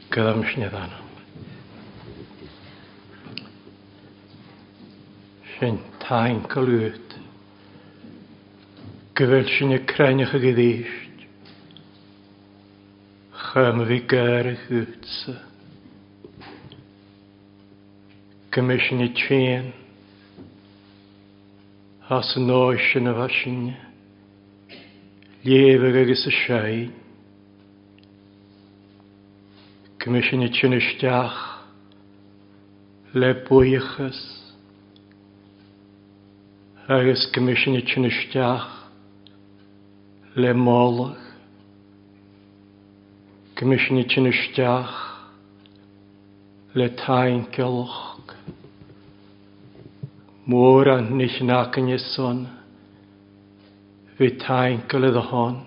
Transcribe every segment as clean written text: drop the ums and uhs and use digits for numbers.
Gyda sin a d'anam. Sin tainceal uait. Go bhfuil sin ag crainneach ag arís. Chum a bhí gáire chugatsa. Go mbeidh sin ag tréan as an áit sin a bheith sin léamhadh agus a seinn. Go mbeidh sin ag tinn isteach le buíochas agus go mbeidh sin ag tinn isteach le moladh. Go mbeidh sin ag tinn isteach le taincealach. Mórán nich in aice san bhí tainceal i do shon.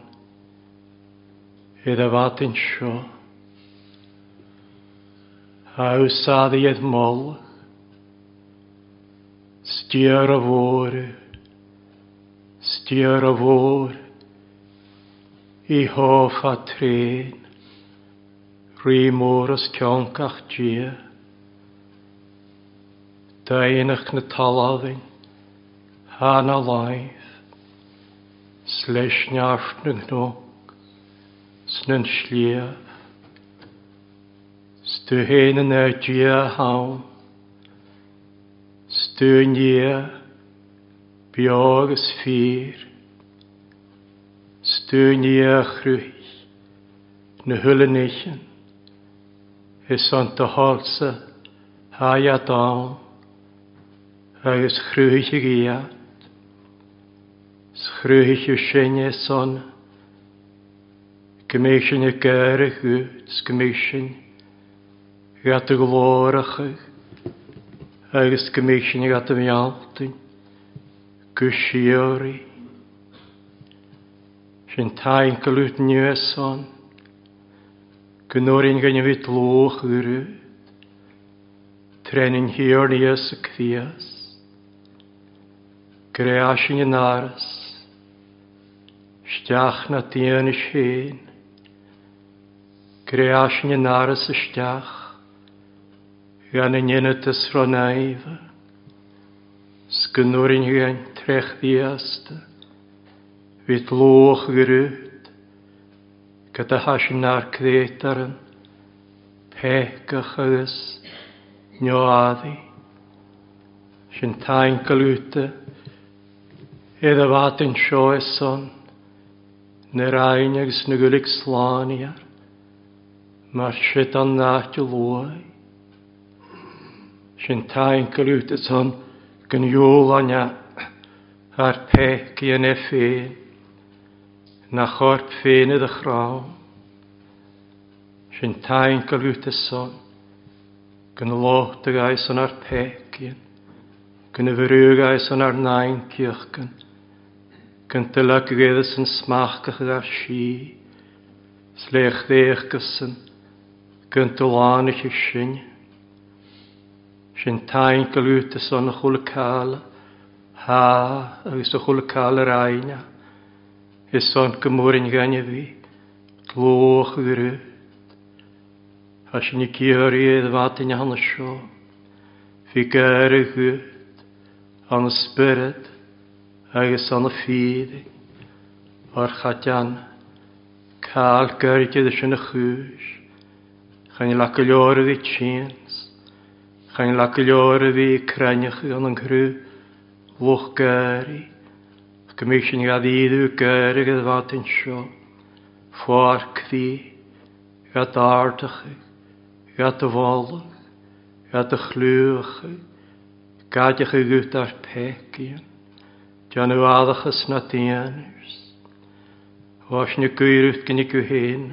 I do mhaidin seo. A úsáid iad moladh. Stiúr a mhór, stiúr a mhór, í hófa tréan, rí mór os cionn gach dia. Daonnacht na talmhan, thá na láimh. 'S leis neart na gcnoc 's na sliabh. 'S tú fhéin ina Dia ann. 'S tú i nDia beo agus fíor. 'S tú i nDia a chruthaigh na huile nithe. Is ann do thoilsa thá iad ann agus chruthaigh iad. 'S chruthaigh tú sinn é san go mbeidh sinn ag gáire dhuit 's go mbeidh sinn agat a ghlóracha agus go mbeidh sinn agat a mhealltain go síoraí. Sin taincle uait inniu é san go n-oireann againn a bheith dlúth uirthi trén an Thiarna Íosa Críost. Greadh sin in áras, isteach na daoine féin. Greadh sin in áras isteach gan a ndéanamh de sruth naofa, 's go n-oireann againn tréchmheasta. Bhí dlúth ghrút go do thá sin nár creat ar an péacach agus neoadaí. Sin taincle uta i do mhaidin seo is son na Roinne agus na Gaeilge slánaíar mar siad an áit a luaigh. Sin taincle uta son go n-iúlainne thar péic i n-e féin, na chorp féin i do chrann. Sin taincle uta son go n-lóchtaigh san ar péicín, go n-bhrúghaidh san ar n-ainceachcan, go n-tuilleadh san smachcach ar sí, 's léachdhéachcasan, go n-tulánaithe sin. Sin taincle uta san a chuala caille, thá agus a chuala caille ar aighle, is san go mór an ghainimh bhí, dlúth ghrút. Tá sin ag iarraidh i bhfad ina hionadh seo. Bhí gáire agat, an spiorad agus an fírinne, ar chaighdeán cáil gairide sin a chúis. Chan le go leor a bhí tinn, chan le go leor a bhí crainneach gan an cruth lucht gáirí, ach go mbeidh sin gad ídiú gáire i bhfad anseo, pháirc bhí. Gad ardachaidh, gad do mholadh, gad do chlúmhachaidh, gaideachaidh gut ár peicín, déanamh adachas na daoinears. Bhás na gcaoirut gin acu féin,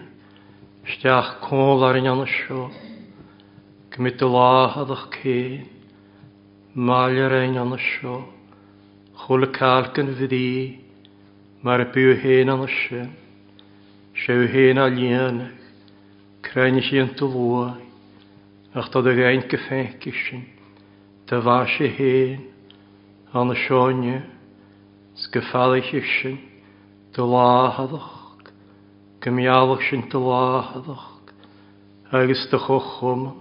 isteach cónla ar an ionad seo, go mbeidh do láthadach céin, maille ar an ionad seo, chuala cailc an bhrí, mar a bíodh féin ann sin. Sé féin á líonadh, crainn iontu luaith, ach tá do gheint go feicfidh sin, do mhaith sé féin, ann seo inniu, 's go feallfaidh sin do láthadach, go meallfadh sin do láthadach, agus do chomhchumann,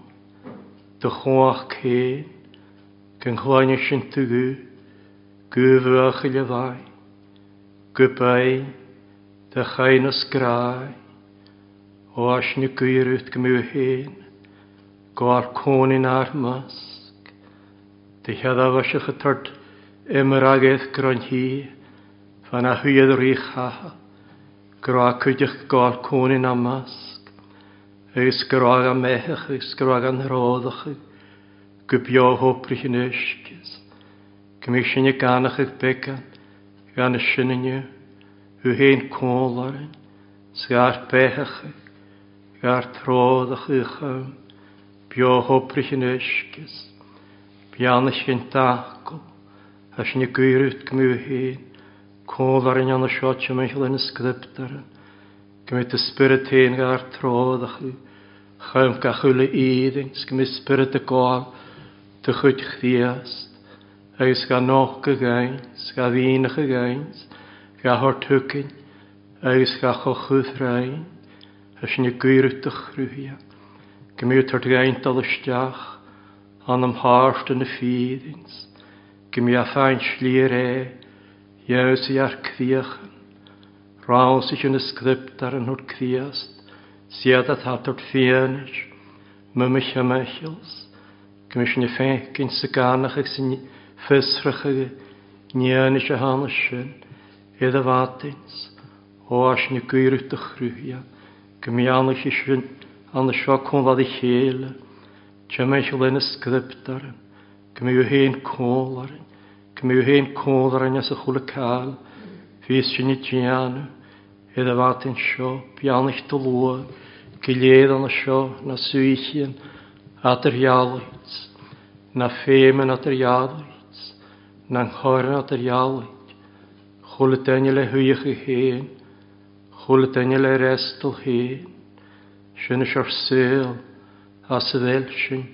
do chumhacht féin, go gcluine sinn do ghuth, guth bhuachaill a bhain, guth beinn do chaighneas grá, ó aisne gaorúth go mbeadh féin, go ár cónaí inár measc. Do cheadabhaiseach a tort imragaidh gronn-thí fan a thuighead rí-chatha, go raibh cuideachta go ár cónaí inár measc, agus go raibh an mbeathach agus go raibh an ródach go beo hóprich in uisce, go mbeadh sinne ganach ag beagán gan a sin inniu, thú féin cónal orainn, 's gar beathach, gar tródach í chum beo hóprich in uisce, beannacht an tacal, a sinne gaorúth go mbeadh féin cónal orainn ann seo timcheall ina script orainn, go mbeidh do spiorad féin gar tródach í chum gach uile aoibhinn, 's go mbeidh spiorad ag gabháil do chuid Chríost, agus ga noc againn, 's ga mhianach againn, 's ga thabhairt chugainn, agus ga chochúthrainn, a sin ag gaoradh do chruthaithe, go mbeidh ort againn dul isteach anam thart ina fírinc, 's go mbeidh a féin slí ar é dheabhsaigh ar críochan, ransaigh ina script ar an thabhairt Críost, 's iad atá tabhairt fianaise, muime chemicals, go mbeidh sin féicint sa gcanach agus san fiosrach aige ndéanfaidh sé thána sin, iad a bhataint, ó ais na gaoradh do chruthaithe, go mbeannaigh sin an seo cónlad a chéile, timcheall ina script orainn, go mbeidh féin cónal orainn, go mbeidh féin cónal orainn as a chuala cáil, bhíos sin ag déanamh, iad a bhataint seo, beannaigh do luath, go léir an seo, na suíchín, eadardhealaigh, na féimeann eadardhealaigh, na ncorn eadardhealaigh, chuala duine le huíocha féin, chuala duine le restal féin, sin is ár saol as a bhfuil sin,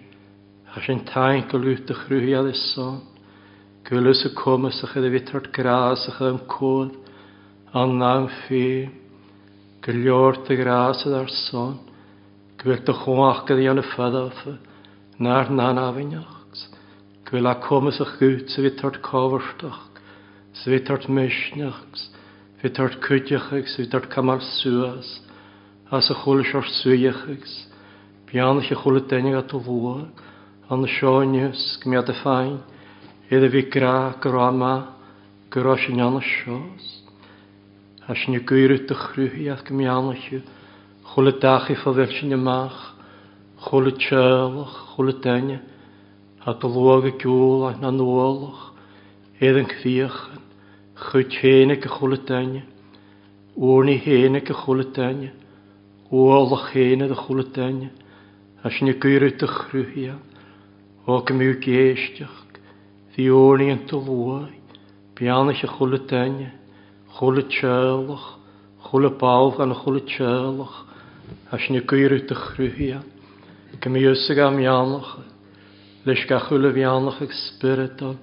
as sin taincle út do chruthaigh is son, go bhfuil fhios a cumas a chuid a bhí tort grás a chuid an comhad an am féin, go leor do ghrás ar son, go bhfuil do chumhacht a dhéanamh fada nár n-anamhneacht, go bhfuil a cumas a chuid sa bhí tort cómhartach, sa bhí tort misneach, bhí tort cuideachach, sa bhí tort camal suas, as a chuala seort suíochas, beannacht a chuala duine go luath, an seo inniu, go mbeadh do féin, iad a bhí grá go raibh maith, go raibh sin ann seo. As sin ag iarraidh do chruthaíocht go mbeannacht, chuala dachaí fá bhfuil sin amach, chuala teaghlach, chuala duine, a do luath go gceol na nuálach, iad an chríochan, chuid féin ag a chuala duine, urnaí féin ag a chuala duine, ualach féin ag a chuala duine, as sin ag iarraidh do chruthaíocht, ó go mbeadh éisteacht, bhí urnaí an do luath, beannacht a chuala duine, chuala teaghlach, chuala ball gan chuala teaghlach, as sin ag iarraidh do chruthaíocht, go mbeadh fhios ag am mheánach, leis gach uile mheánach ag spioradal,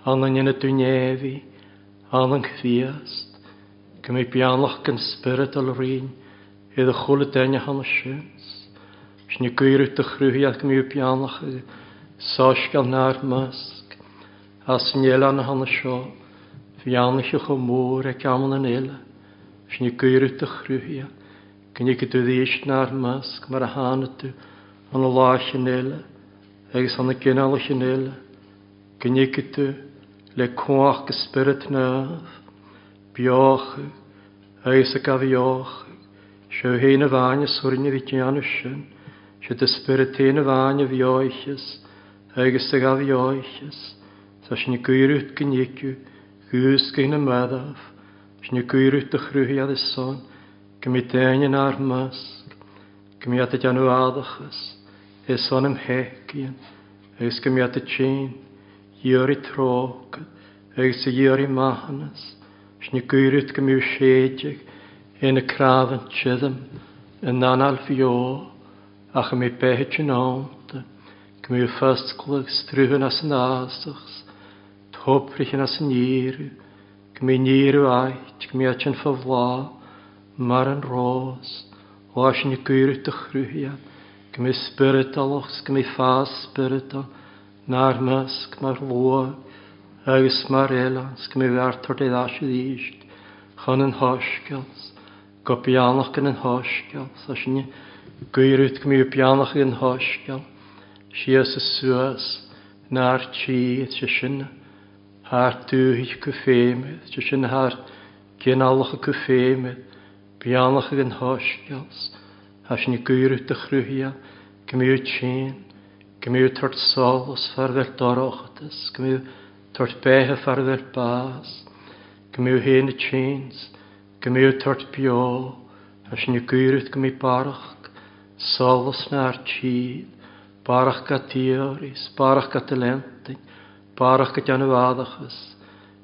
an an ionad duine an an Chríost, go mbeidh beannacht gan spioradal orainn iad a chuala duine cheana sin. Sin ag iarraidh do chruthaíocht go mbeadh beannacht ag soiscéal nár measc as an oileán cheana seo, bheannaithe chomh mór ag amanna an fhéile. Sin ag iarraidh do chruthaíocht go ndéanfaidh tú arís nár measc mar a tháinig tú an lá sin eile agus an gcineál sin eile, go ndéanfaidh tú le cumhacht go Spiorad Naomh, beochadh agus a gabheochadh, seo féin a bhain a suirne bhí déanamh sin, sé do Spiorad féin a bhain a bheoicheas agus a gabheoicheas, tá sin ag iarraidh go ndéanfaidh dhúscaigh na mbeadach, sin ag iarraidh do chruthaigh is son, go mbeidh daoine inár measc, go mbeadh ag déanamh adachas, is son im theicíonn, agus go mbeadh ag tinn, iarraidh trócaire agus a iarraidh maithiúnas, sin ag iarraidh go mbeadh séideadh ina cnámh an tirim in anáil bheo ach go mbeadh beithe tionónta, go mbeadh foscladh agus struthan as an fhásach, topraitheann as an iarraidh, go mbeadh níoradh ait, go mbeadh tinn fá bhláth mar an rós, ó sin ag iarraidh do chruthaithe. Go mbeidh spioradálach 's go mbeidh fás spioradál 'nár measc mar luath agus mar oileán 's go mbeidh art ort ar ais arís chun an Shoiscéil 's go beannach gan an Shoiscéal 's as sin guíread go mbeidh beannach ag an Shoiscéal síos is suas 'nár tír 's sé sin thar dúthaigh acu féin 's sé sin thar gcineálacha acu féin beannach ag an Shoiscéal 's as sin guíread do chruthaithe go mbeidh tinn, go mbeidh tabhairt solas far bheith dorchadas, go mbeidh tabhairt beithe far bheith bás, go mbeidh féin tinn 's go mbeidh tabhairt beo, as sin guíread go mbeidh barrach solas 'nár tír, barrach go dtíoris, barrach go talentinn, barrach go déanamh adachas,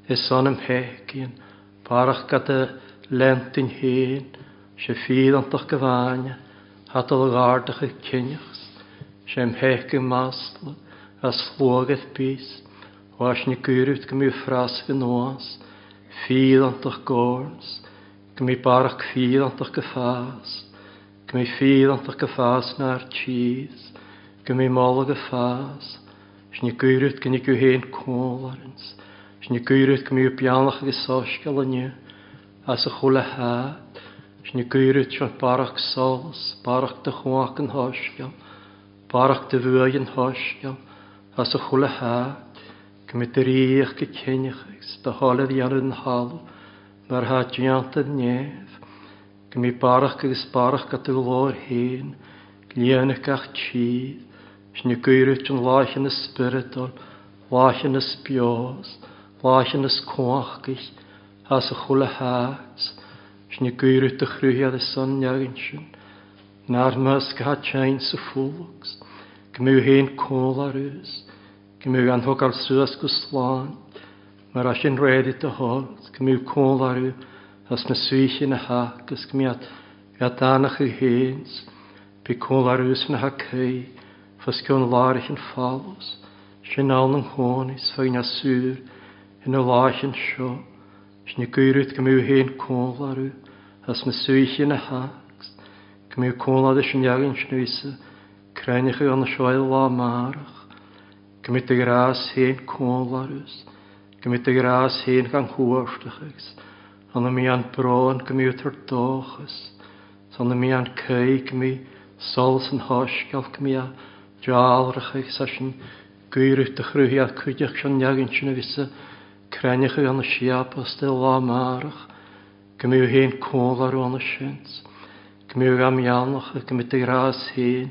is anam fhéicíonn, barrach go do lentinn féin, sé fíorantach go bhfáinne, hatal ghardach ag cinneachs, sé im théic masla, as sluagad bís, bhais na gcuiread go mbeidh frasc anuas, fíorantach górns, go mbeidh barrach fíorantach go fás, go mbeidh fíorantach go fás 'nár tíos, go mbeidh moladh go fás, 's na gcuiread go n-igeadh féin cómharans, 's na gcuiread go mbeidh beannach agus soiscéal inniu as a chuile háit, 's na gcuiread seo barrach solas, barrach de chumhacht an shoiscéil, barrach de bhuaidh an shoiscéil as a chuile háit, go mbeidh do ríocht go cinneach agus do thoil a dhéanamh den thalamh mar atá déanta i neamh, go mbeidh barrach agus barrach go do ghlóir féin, líonadh gach tír, 's na gcuiread an láicheanna spioradal, láicheanna beos, láicheanna cumhachtaigh as a chuile háit, 's na gcuiread do chruthaithe is an neaghain sin, 'nár measc atá teinn sa phulcs, go mbeidh féin cómhlarús, go mbeidh an thógáil suas go slán, mar as sin réidh do thoil, go mbeidh cómhlarú as na saoithe na hac agus go mbeadh danach i féin, beidh cómhlarús na hacaí, fos cionn láirich an folus, sin ann an chónaí, 's faoin asúr ina láicheann seo, 's na gcuiread go mbeidh féin cómhlarú as na saoithe na hac, go mbeidh cómhlad is an neaghain sin crainneacha an seo lá márach, go mbeidh do ghrás féin cómhlarús, go mbeidh do ghrás féin gan chuartachas, an na mbíonn brón go mbeidh tar dóchas, 's an na mbíonn caoi go mbeidh solas an shoiscéil go mbeidh dealrach agus as sin guíread do chruthaithe cuideach sin neaghain sin a bhí sa crainneacha an siapas de lá márach, go mbeidh féin cómhlarú an sin, go mbeidh gan meánach, go mbeidh do ghrás féin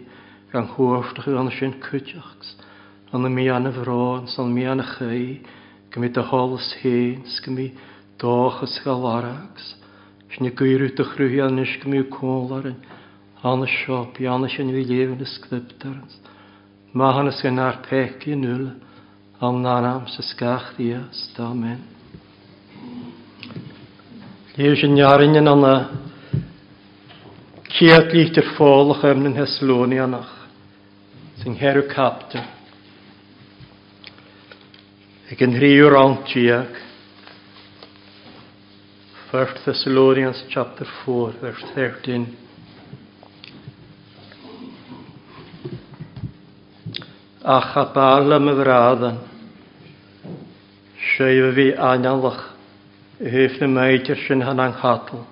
gan chuartachas an sin cuideach, an na mbíonn a bhrón, 's an mbíonn a chaoi, go mbeidh do sholas féin, 's go mbeidh dóchas ga larags, 's na gcuireadh do chruthaithe anois go mbeidh cómhlarú an seo, beanna sin bhí léamh na scriptarans, Maithiúnas gan ár pecaí in iúl, an anam sa scach Dias, Amen. Léamh sin nearainn in anna céad lítear fólach am na Thessalonianach, san cheathrú captar, ag an thríú rann déag, First Thessalonians chapter 4 verse 13. Ach a b'fhearr liom a bhradan, sé a bhí aineolach i thaobh na maidir sin than an chatal.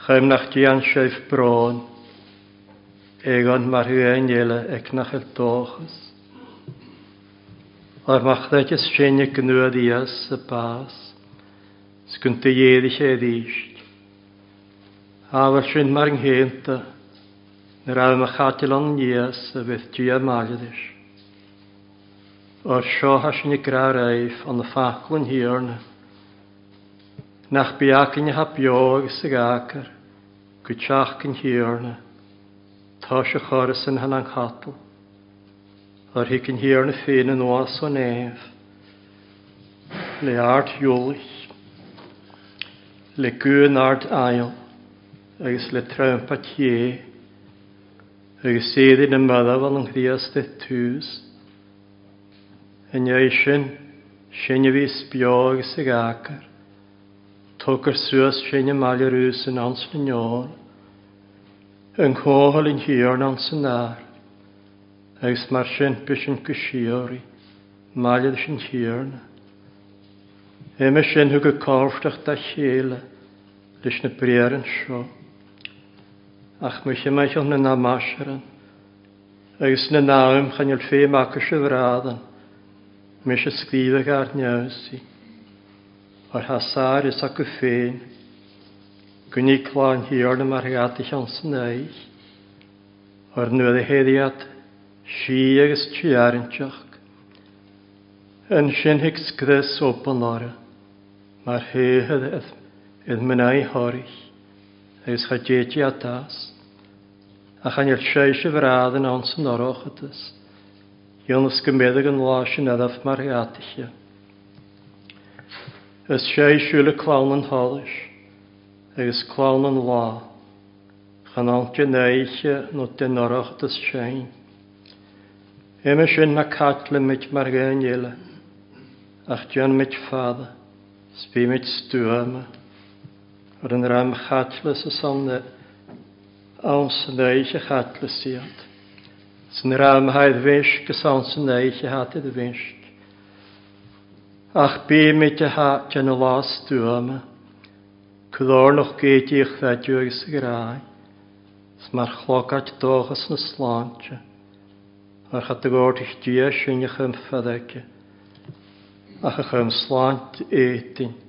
Chaim nach dtéann sibh brón, éagann mar thuain eile ag nach bhfuil dóchas. Ar mo chreideas féin ag gnuadh sa bás, 's go n-éirigh sé arís. Ábhar sin mar an gcéanta, nuair a mo chaiteal an níos a bheith Dia mailris. Óir seo thá sin ag grá roimh an faclann Thiarna, nach beacain atá beo agus ag acar go teach an Thiarna, tá sé chorr san an chatal. Ar thig an Thiarna féin anuas ó neamh le ard eolais, le guth an ard aill agus le trampa Dé, agus éirí na marbh an Chríost i dtús. I ndiaidh sin, sinn a bhíos beo agus ag acar, tugtar suas sinn i mbaile Rús in ann sna neoil. Yn chomhairle an Thiarna ansan ár, agus mar sin b'shin go síoraí, maille leis an Tiarna. Uime sin thug a cábhaisteach dá chéile leis na briathra seo. Ach mo chimeadh na n-amaisearann, agus na n-am chan fhuil feidhm acu sa bhradan, mise scríobhadh ár neamhsaí, mar thá sár fhios acu féin, go ní clann Thiarna mar gheata cheann san aghaidh, ar nuair a théid iad sí agus tearrainteach. Ansin thig scrios obann orthu mar théad iad mná Thoraigh agus cha dtéid iad as, ach an fhuil seiseamh bhradan ann san oireachtas, ionas go mbeadh an lá sin adaimh mar gheataithe. Is séisiúil clann an tsolais agus clann an lá, chan ann den oíche nó den oireachtas sin. Uime sin ná caitlimid mar dhaoine eile, ach déanaimid fada 's bímid stuama ar an dream chaitleas is ann san oíche chaitleas iad, 's an dream atá i bhfeisc is ann san oíche atá i bhfeisc. Ach bímid a theacht ina lá stuama, clárnach géidíoch bheidiú agus ghrá, 's mar chlogait dóchas na sláinte, ar chat a gcomharthaigh Dia sinn a chum fad aici, ach a chum sláinte éadain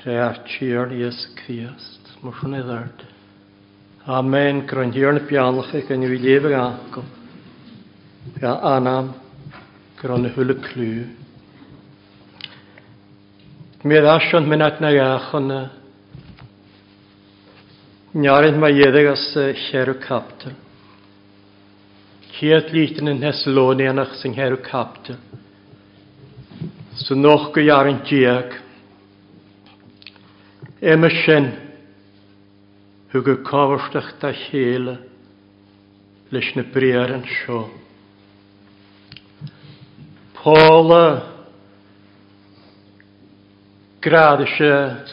tré ár Tiarna Íosa Críost. Mar sin é dart. Amen. Go raibh an Tiarna beannach ag an bhí léamh ag uncail. Bhí a anam go raibh na huile clú. Mé as an minat na gachana. Nearin ma iadh as cheithre captal. Chéad litir na nTheasaloinéanach san cheithre captal. Sa noch go dhearn déag. Uime sin, thug a cábhaisteach dá chéile leis na briathra seo. Paula Gread is ea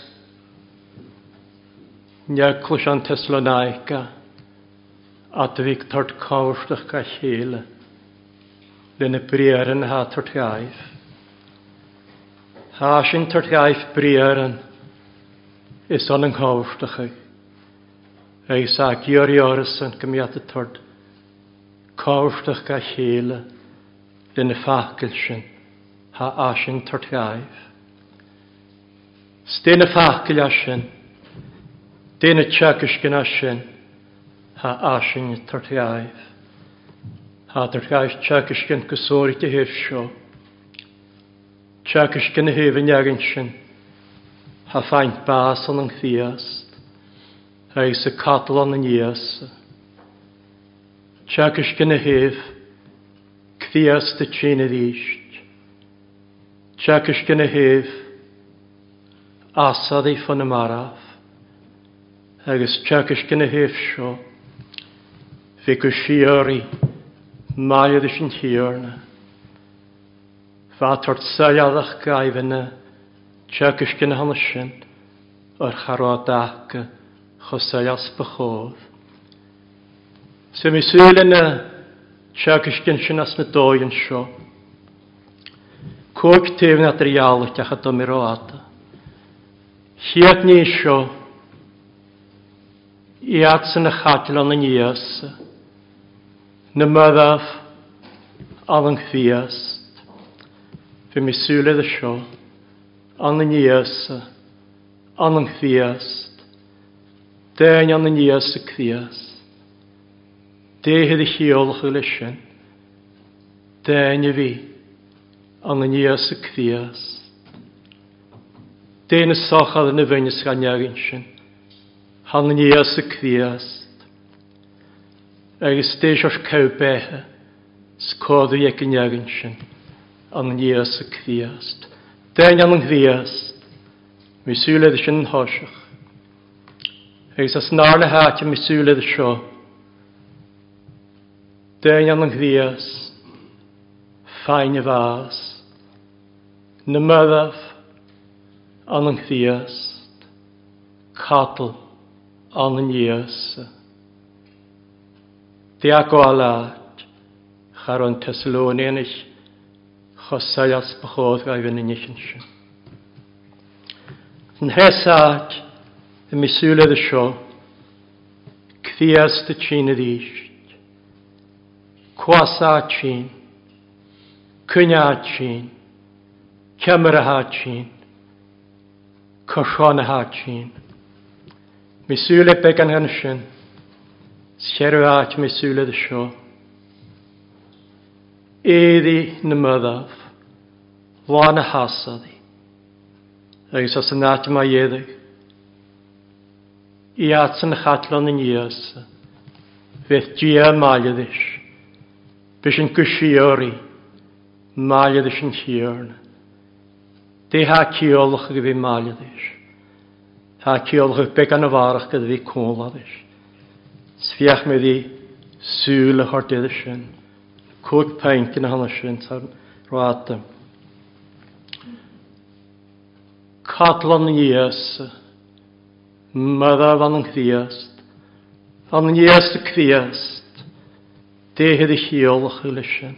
Neagclais an Tesalonica at bhí tort cábhaisteach dá chéile lena briathra atá tort ghaibh. Tá sin tabhairt ghaibh briathran is ionann cómhachtacha agus a gciorraí orthusan go mbeadh a tabhairt cómhachtach dá chéile le na facail sin thá sin tabhairt ghaibh. 'S dé na facail as sin, dé na teagaiscin as sin thá sin tabhairt ghaibh. Thá tabhairt ghaibh teagaiscin go sóirt a thaobh seo. Teagaisc ina thaobh an leagain sin, Thá faint bás ann an Chríost, agus a catal ann an Íosa. Teagaisc ina thaobh, Críost a tinn arís. Teagaisc ina thaobh, Asadaí fá na marbh. Agus teagaisc ina thaobh seo, Bhí go síoraí maith leis an Tiarna. Bheadh ort soiléireacht gaibhne teagaisc ina shon sin ar cha raibh dtaca chomh soiléir 's ba chóir. Sea mé súil ina teagaisc sin as na dóigheann seo. Cúig taobh na dtrialach ach a d'imir rófhada. Chéad ní seo, iadsan a chaiteann aníos. Na marbh an Chríost. Bhí mé súil air seo. An Íosa. An Chríost. Déan an Íosa Críost. Déithe a chiallachadh leis sin. Déan a bhí. An Íosa Críost. Déan a sochar na bhfein is gan neagin sin. An Íosa Críost. Agus d'éis ort cabh beithe 's códaí ag an leagan sin, an Íosa Críost. Déan an Chríost. Bhí súil air sin thoiseach. Agus as an arna háit a mbí súil air seo. Déan an Chríost. Fáinne bhás. Na marbh an Chríost. Catal. An Íosa. Teagmháil leat, cha raibh an Teasalóinéanach chomh soiléir is ba chóir go raibh ina ndícheann sin. An tréas áit i mo súile de seo, Críost a tinn arís. Cuasa a tinn. Coinne a tinn. Ceamara a tinn. Cothrom a tinn. Mo súile beagán ansin. 's cheithre áit mo súile de seo. Éadaí na mBadbh, lá na hasadaí. Agus as an áit má éadaigh. Iadsan a chaitleán aníos. Bheadh Dia maille leis. B'shin go síoraí, maille leis an Tiarna. Dé há ciallach go bhí maille leis. Tá ciallach beag an bharrach go bhí cónla leis. 'S féach mé bhí súil a thabhairt air sin. 5 pint ina hionadh sin sa ráta. Cadlann Íosa, Mother an Chríost, an Íosa Críost, Déithe de chiallach leis sin.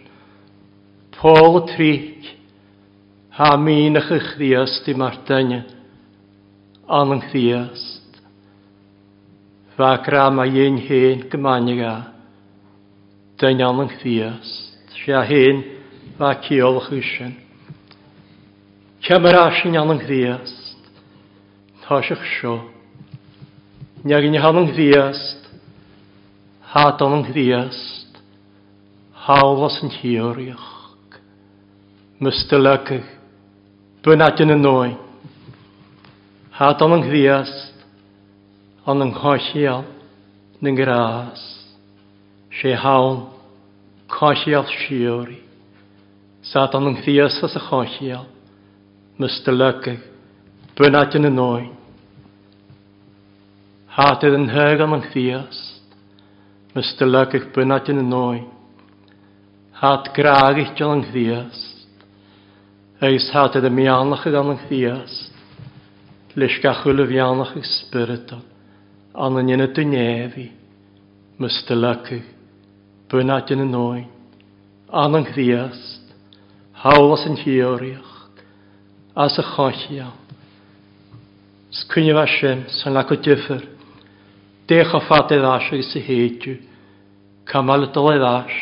Pól 3, Tá míneacha Chríost i mar duine, an Chríost. Bheadh grá má dhein féin go mbainfeadh a duine ann an Chríost. Sé a féin bheadh ciallach í sin. Cé mar as sin ann an Chríost? Toiseach seo. Neagaine ann an Chríost, hat ann an Chríost, thall as an Chiarraíoch. Mustalagh, bunáite na ndóigh. Hat ann an Chríost, ann an choicheall na ngrás, sé thonn coicheall síoraí. Sa ann an Chríost as a choicheall, Mustalagh, bunáite na ndóigh. Hat ar an thag ann an Chríost, Mustalagh, bunáite na ndóigh. Hat grágaithe ann an Chríost, agus hat ar a mbeannach ann an Chríost. Leis gach uile bheannach ag Spiorad an an ionad do neamhaí, Mustalagh, bunáite na ndóigh, an an Chríost, thall as an Chiarraíocht, as a choicheall. 'S cuimhneamh as sin, san le go difir, dé chomh fada ar ais agus a théid cá mbeadh le dul ar ais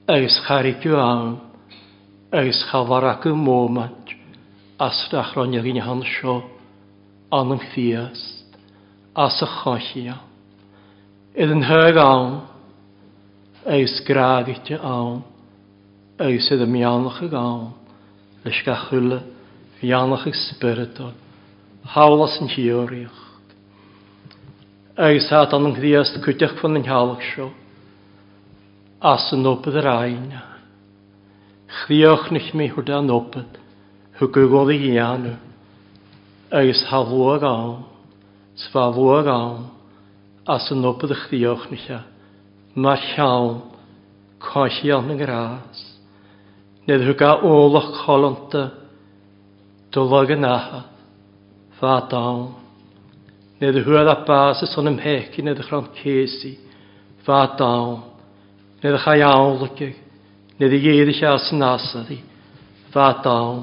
agus cha raibh ann agus cha bhar acu móimint as nach raibh na dhaoine anseo ann an Chríost as a choicheall. Ar an thag ann agus grágaite ann agus ar an mbeannach ag ann leis gach uile bheannach ag spioradal thall as an Chiarraíocht. Agus tá an Chríost cuideachta fan an theallach seo as an obair ar aghaidh. Chríochnaigh mé thur an obair thug go dhul a dhéanamh agus tá luach ann, 's bheadh luach ann as an obair a chríochnaigh mar cheann coimhthíoch na ngrás. Níor thug a ualach codlanta do log an athar fad ann. Níor thuar a bás is ionam fhéic níor chrann céasaí fad ann. Níor chaith amhlaidh Nuair a d'éirigh sé as an asar í, bheadh ann,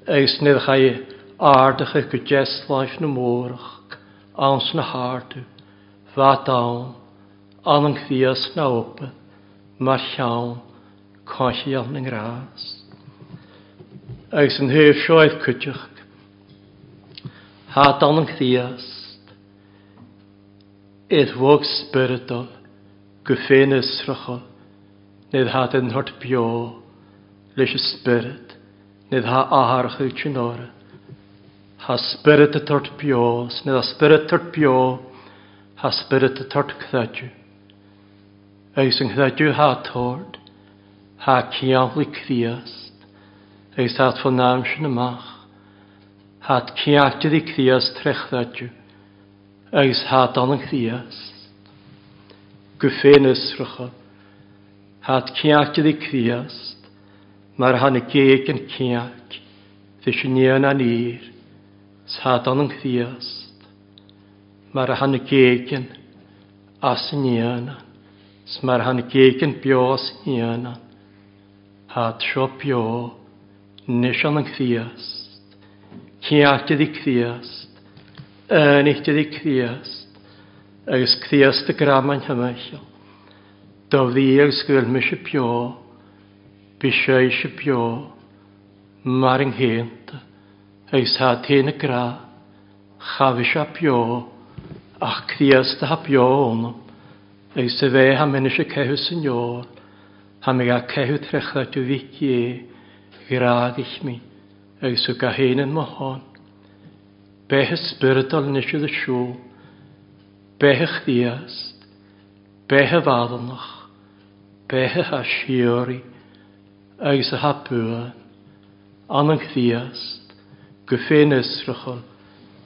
agus nuair a chaith ardaithe go deasláimh na mórach ann sna hardú, bheadh ann, ann an Chríost ná obair mar cheann coimhthíoch na ngrás. Agus an thaobh seo ar cuideachta, bheadh ann an Chríost, ar bhog spioradal go féinfhiosrachal, Nuair atá den short beo leis an spiorad, nuair atá athartha sin orra. Tá spiorad a tort beo, 's nuair atá spiorad tort beo, tá spiorad a tort creideamh. Agus an creideamh atá tort, tá cianlaigh Críost, agus tá fán am sin amach, tá ciantair i Críost tré chreideamh, agus tá don Chríost. Go féinfhiosracha, tá ceart ag Críost mar a tháinig géag an ceart leis an éan aniar, 's tá don Chríost. Mar a tháinig éigin as an fhianán, 's mar a tháinig éigin beo as an fhianán, Thá seo beo anois ann an Críost, Ceart di Críost, Aonacht di Críost, agus Críost i gcrabhmainn thimcheall. Do bhrí agus go bhfuil mise beo, bí sise beo, mar an gcéannta, agus thá taobh na grá. Cha bhí sé beo, ach Críost atá beo ionam, agus a bheith a mbeinn ise ceitheadh san fheoil, tá mé ag ceitheadh tré chreideamh Mhic Dé, ghrádaigh mé, agus thug a fhéin in mo shon. Beithe spioradal anois i do siúl, beithe Chríost, beithe mheadonach, beithe atá síoraí, agus atá buan. Anam Chríost, go féinfhiosrachán,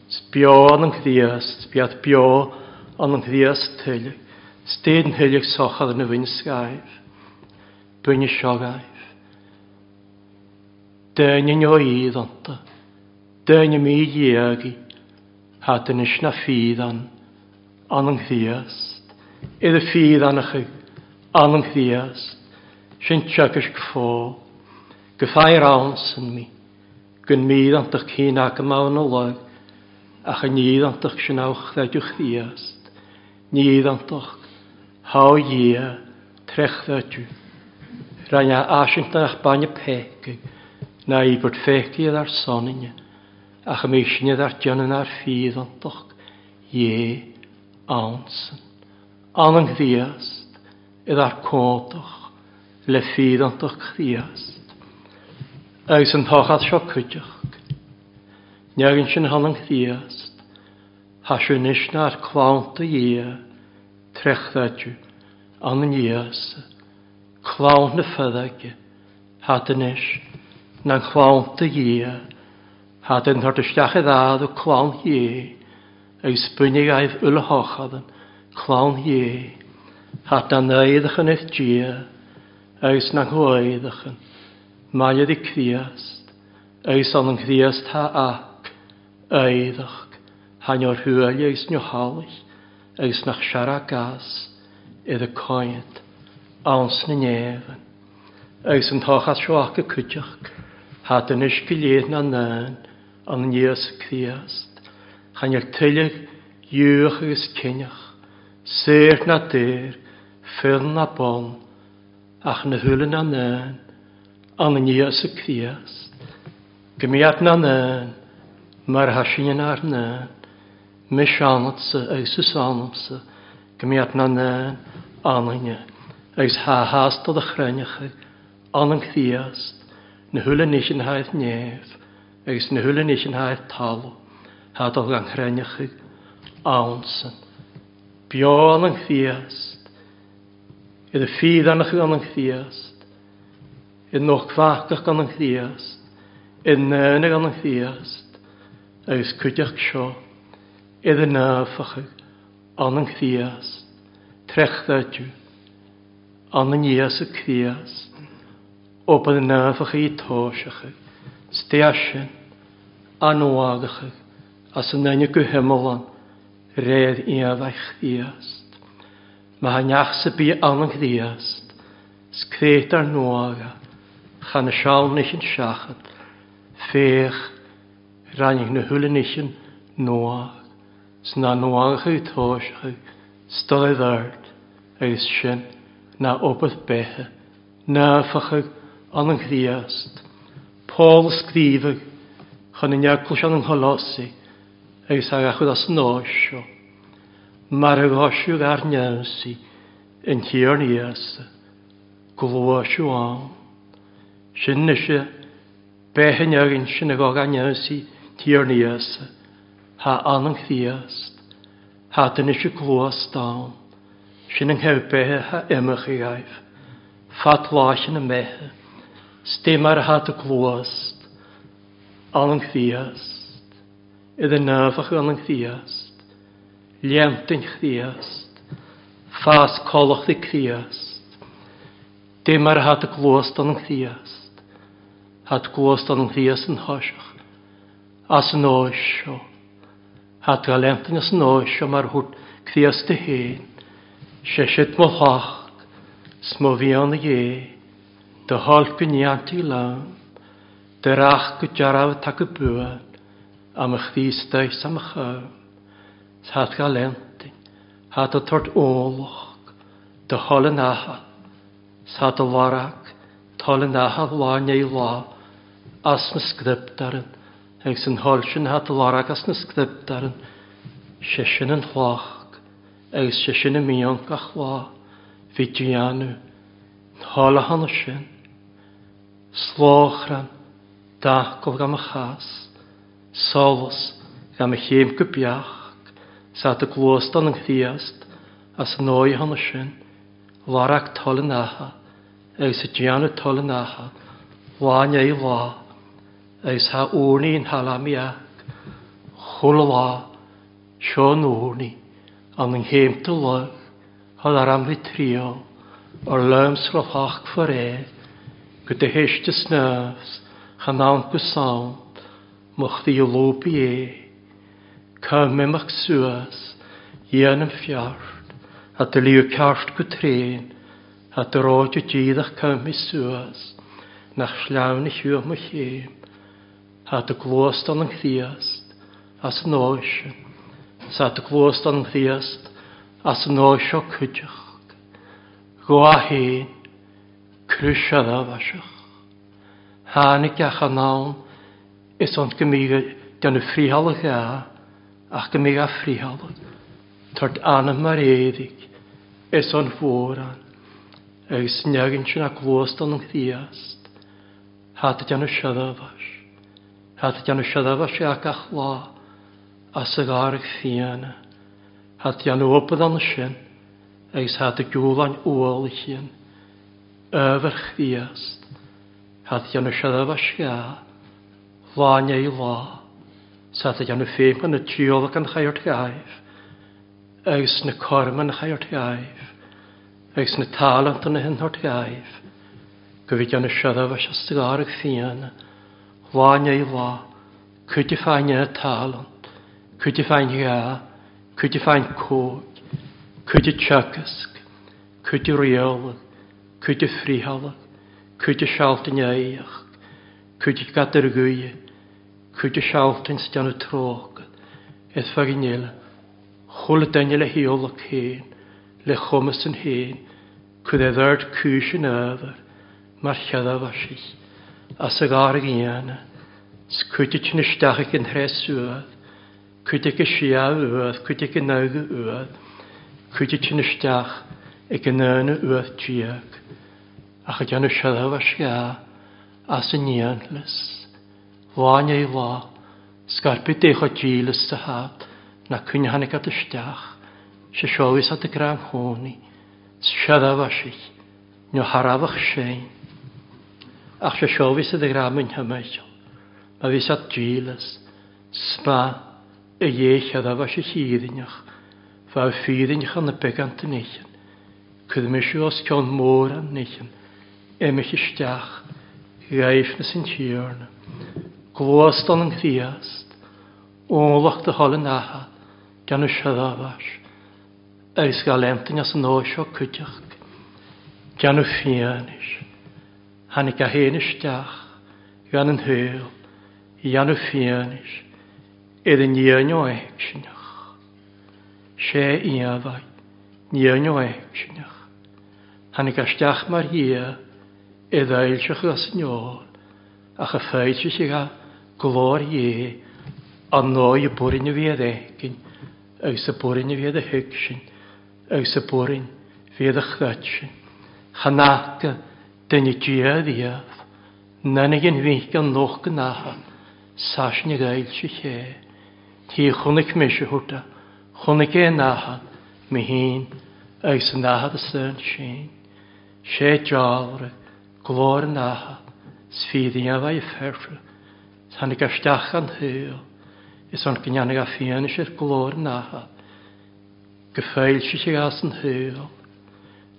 's beo anam Chríost, bead beo anam Chríost tuilleadh, 's déan thuilleadh sochar na bhfuin scaimh, buinne seogaibh. Daoine neo iad iontu, daoine mídhiagaí, thá anois na fídhean, anam Chríost, idir fídheanacha anam Chríost, sin teagaisc Phóil. Go feadh ann san mí, go mídhantach cinn aca maith na lag, ach a nídhantach sin á chreideadh Chríost, nídhantach, thá Dhia tré chreideadh. Rinn a fhaisint nach bainne peacaigh ná íobairt pheacaigh ar sonainne, ach a mbíodh sinne dár déanamh nár fídhantach Dhé ann san. Ann an Chríost, i dár cóntach le fíreantacht Chríost. Agus an tochas seo cuideachd. Neagann sin thon an Chríost, thá sé anois nár clann do Dhia, tré chreideamh ann an Íosa, clann na farraige, thá anois ná clann do Dhia, thá den tabhairt isteach ar fhad ó clann Dhé, agus bainfidh aghaidh uile thochadann, clann Dhé, thart na n-éadachan ar Dhia agus na n-éadachan, maille de Chríost, agus ann an Chríost thá ac, éadach, thá neor thuaille agus neo thalaigh, agus nach searrac as, ar a coinnt, ann sna néamhain. Agus an tochas seo aca cuideachd, thá anois go léir na ndán, an Íosa Críost, chan fhuil tuilleadh Giúdach agus Cineach, saor ná daor, fir ná ban, ach na húlla ná ndán, an Íosa Críost. Go mbeadh ná ndán, mar atá sinne nár ndán, mise ionatsa agus tusa ionamsa, go mbeadh ná ndán ionainne, agus thá shásta do chruinneacha, an Críost, na húlla níos in haghaidh neamh, agus na húlla níos in haghaidh talamh, thá dul gan chruinneacha ann san. Beo an Críost, idir fíreannacha an Chríost, i nóchmhacach an Chríost, i ndaoine an Chríost, agus cuideachta seo, idir naofacha an Chríost, trechreideamh. An Íosa Críost, obair naomhacha tóiseacha, stéasin, anmhagacha as an aine go hiomlán réir iamhaigh Chríost. Má tha neach sa bia ann an Chríost, 's créit ár nuága, chan na seal nichin seachad, féach, ráinig na húlla nichin nuág, 's ná nuágacha tóiseacha, 's dul i bhfeird. Agus sin ná obair beithe, naofacha an an Chríost. Pól a scríobhadh chun an eaglais an Cholossaigh agus a gach rud as an áis seo, mar a ghoiseadh ár n-ionsaí an Tiarna Íosa, gluaiseadh ann. Sin ise beith an againn sin a ghabh an ionsaí Tiarna Íosa, thá an an Chríost. Thá duine gluas donn. Sin an chéad beithe a imeochaidh agaibh. Fad láiche na mbeithe. 'S dé mar athá do gluas ann an Chríost. Idir naomhadh ann an Chríost. Léantain Chríost. Fás collachtaí Críost. Dé mar athá do gluas donn an Chríost. Thá do gluas donn an Chríost an thoiseach. As an áis seo. Hat ga leintin as an áis seo mar thabhairt Críost do fhéin. Sé sin mo theach 's mo mhian a Dhé, do thoil go ndéantaí liom, do reacht go dearbh atá go buan, a mo Chríost is a mo cham. 'S hat ga leintin, hat a tabhairt eolach do thoil an Athar, 's hat a lorg toil an Athar lá i ndiaidh lá as na scrioptúir, Agus an thoil sin atá lorg as na scrioptúir, sé sin an chloch, agus sé sin a mbíonn gach lá, bhí déanamh, an thoil a thána sin, slóchrann, d'acaill gan mo chás, solas gan mo chéim go beacht, 's at a gcluas don an Chríost as an dóigh a thána sin, lorg toil an Athar, agus a déanamh toil an Athar, lá i ndiaidh lá. Agus thá urnaí in Halamiak chuile lá, seo an urnaí, an an chéimta luigh, thá dar am bhí triall, ar liom 's ro-theacht for é, go do théiste snámh 's chan ann go sound, mo chroí a lúb é. Cá m'imeacht suas, dhéanaim feart, a do ligeadh ceart go tréan, A do ráite díreach cá mé suas, nach sleamhain a shiúl mo chéim, A do gluas don an Chríost as an áith sin, 's a do gluas don an Chríost as an áith seo cuideachta, Go 1, Crois a raibh. Tháinig ach anonn is ann go mbíodh déanamh friothálaigh ea, ach go mbíodh a friothálaigh. Tabhairt anam mar éadaigh is an mhórán agus neaghain sin a gcluas don Chríost. Thá do déanamh searbhais. Thá do déanamh searbhais ea gach lá as a gcarraig fiáine. Thá do déanamh obair ann sin agus thá do giúláin ualaigh sin. Ábhar Chríost. Thá do déanamh searbhais ea lá i ndiaidh lá. Sa do dhéanamh féin chun na trialach an chairt ghaibh, agus na coirm an chairt ghaibh, agus na talanta na hinthort ghaibh, go bhí déanamh searbhais as do ghairg fiáine, lá i ndiaidh lá, cuid de fáinne talant, cuid de fáinne gha, cuid de fáinne cóig, cuid de teagasc, cuid de rialadh, cuid de friotháladh, cuid de sealta neamhaíoch, cuid de gadair ghaoithe, Cuid de sealtain 's déanamh tróca is faighin eile, chuile duine le hiolladh féin, le chumas an féin, cuid é bheart cúis an ábhair, mar cheadmhaisich, as a gcarraig fhiáine, 's cuid de tinn isteach ag an thréas uaidh, cuid ag an siadh uaidh, cuid ag an agha uaidh, cuid de tinn isteach ag an aoine uaidh déag, ach a déanamh sealbhais ghá as an ndéanmhas. Lá i ndiaidh lá, scairpigh dé chomh dílis sa hat ná coinne tháinig at isteach, sé seo bhíos at a gcrann chónaí, 's searbhaisich, nó cha rabhadh sein. Ach sé seo bhíos at a ghreamain thimcheall, má bhíos at dílis, 's maith a Dhé shearbhaisich fhírinneach, bheadh fírinneach ina beagán den oicheann, cuir mise os cionn mórán oicheann, imigh isteach, ghaibhneas an Tiarna. Gluais don an Chríost, ualach do thoil an Athar, déanamh searbhais, agus ga leantain as an áith seo cuideachta, déanamh fianaise. Tháinig a fhéin isteach, gan an shaol, dhéanamh fianaise, ar an ndíon ó éigsinneach. Sé íomhá, ndíon ó éigsinneach. Tháinig isteach mar Dhia i bhfoilseach as an fheoil, ach a foilsigh a glóir Dhé an ndóigh a b'orainn a bhí ar éigin agus a b'orainn a bhí ar a thuig sin agus a b'orainn bhí ar a chreid sin. Chan fhaca duine Dia riamh, nanaigh an mhíth an lucht go n-atha saisin a fhoilsigh é. Ní chonaic mise hurta, chonaic é an atha, mé féin agus an atha san sin. Sé dealramh glór an atha 's fírinne a bheidh feartha, 's tháinig isteach an shaol, is ann go ndéanfaidh a fianaise ar glór an atha, go foilsigh as an shaol,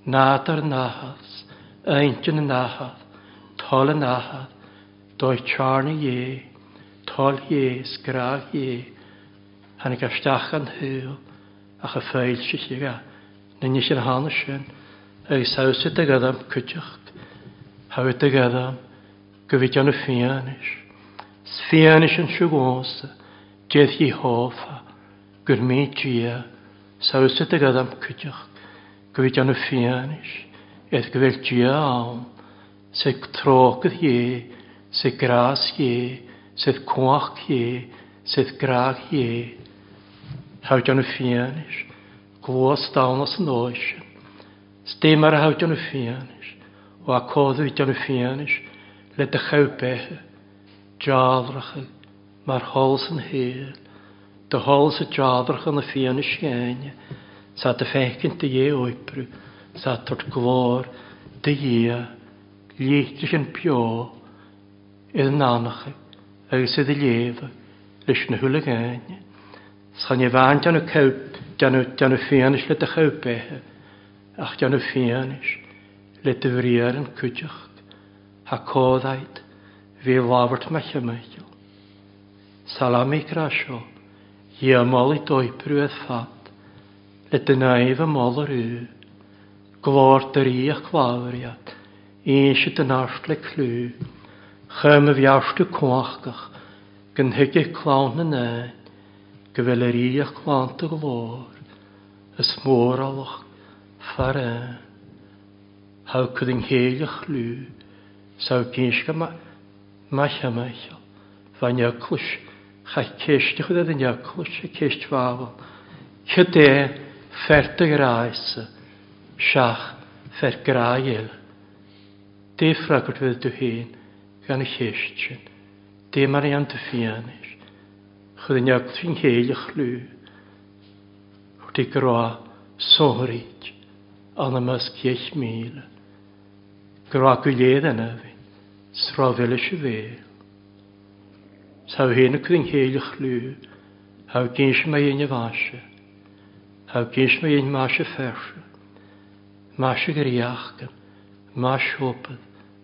nádúr an atha, 's intinn an atha, toil an atha, dóigh tearna Dhé, toil Dhé 's grá Dhé. Tháinig isteach an shaol ach a foilsithe aige na nithe a thána sin agus thabhairt do ghadam cuideacht, thabhairt do ghadam go bhí déanamh fianaise. 'S fianaise an siúgósa d'fhéadfaí thófa gur mí Dia 's thabhairt do ghadam cuideacht go bhí déanamh fianaise is go bhfuil Dia ann 's ag trócaire Dhé 's ag grás Dhé 's ag cumhacht Dhé 's ag grá Dhé. Thabhairt déanamh fianaise gluais donn as an dóigh sin. 'S dé mar a thabhairt déanamh fianaise ó a códú déanamh fianaise le do chabh beithe, dealracha mar sholas an shaoil, do sholas a dealracha na fianaise chéanna, 's a do féichint do Dhé oibriú, 's a tabhairt glóir do Dhia, liathraigh an beo i d'anamcha agus i do léamha leis na huileagáin. 'S chan é bhean déanamh chabh, déanamh, déanamh fianaise le do chabh beithe, ach déanamh fianaise le do bhriathar an cuideacht, ha códait bhí labhairt mo chimicheall. Salami grá seo, Dhia molaidh d'oibriú ar fad, le do naomh a moladh riú. Glór do rí a clámhairead, inse do neart le clú. Chum a bheartú cumhachtach, go dtuigfidh clann na n-éan go bhfuil a rí a chlannta glór, is mórálach fear ann. Thogh an chéile chlú, 's thogh gísce maith Mhichíl, bha Nioclais, chaith ceist a chuir ar Nioclais, a ceist mheabhail, Cad é fear do ghrása, seach fear grá eile? Dé freagairt bheith tú féin gan a cheist sin. Dé mar a dhéan tú fianaise. Chuir Nioclais an chéile chlú, thabhairt i grá sonraí ann i measc 10,000. Grá go léir an abhainn, 's raibh mhilis a bhéal. 'S thá féin acu an chéile chlú, thá gins mé dhéin mhaise, thá gins mé dhéin maise feirse, maise ghréachcan, maise shópad,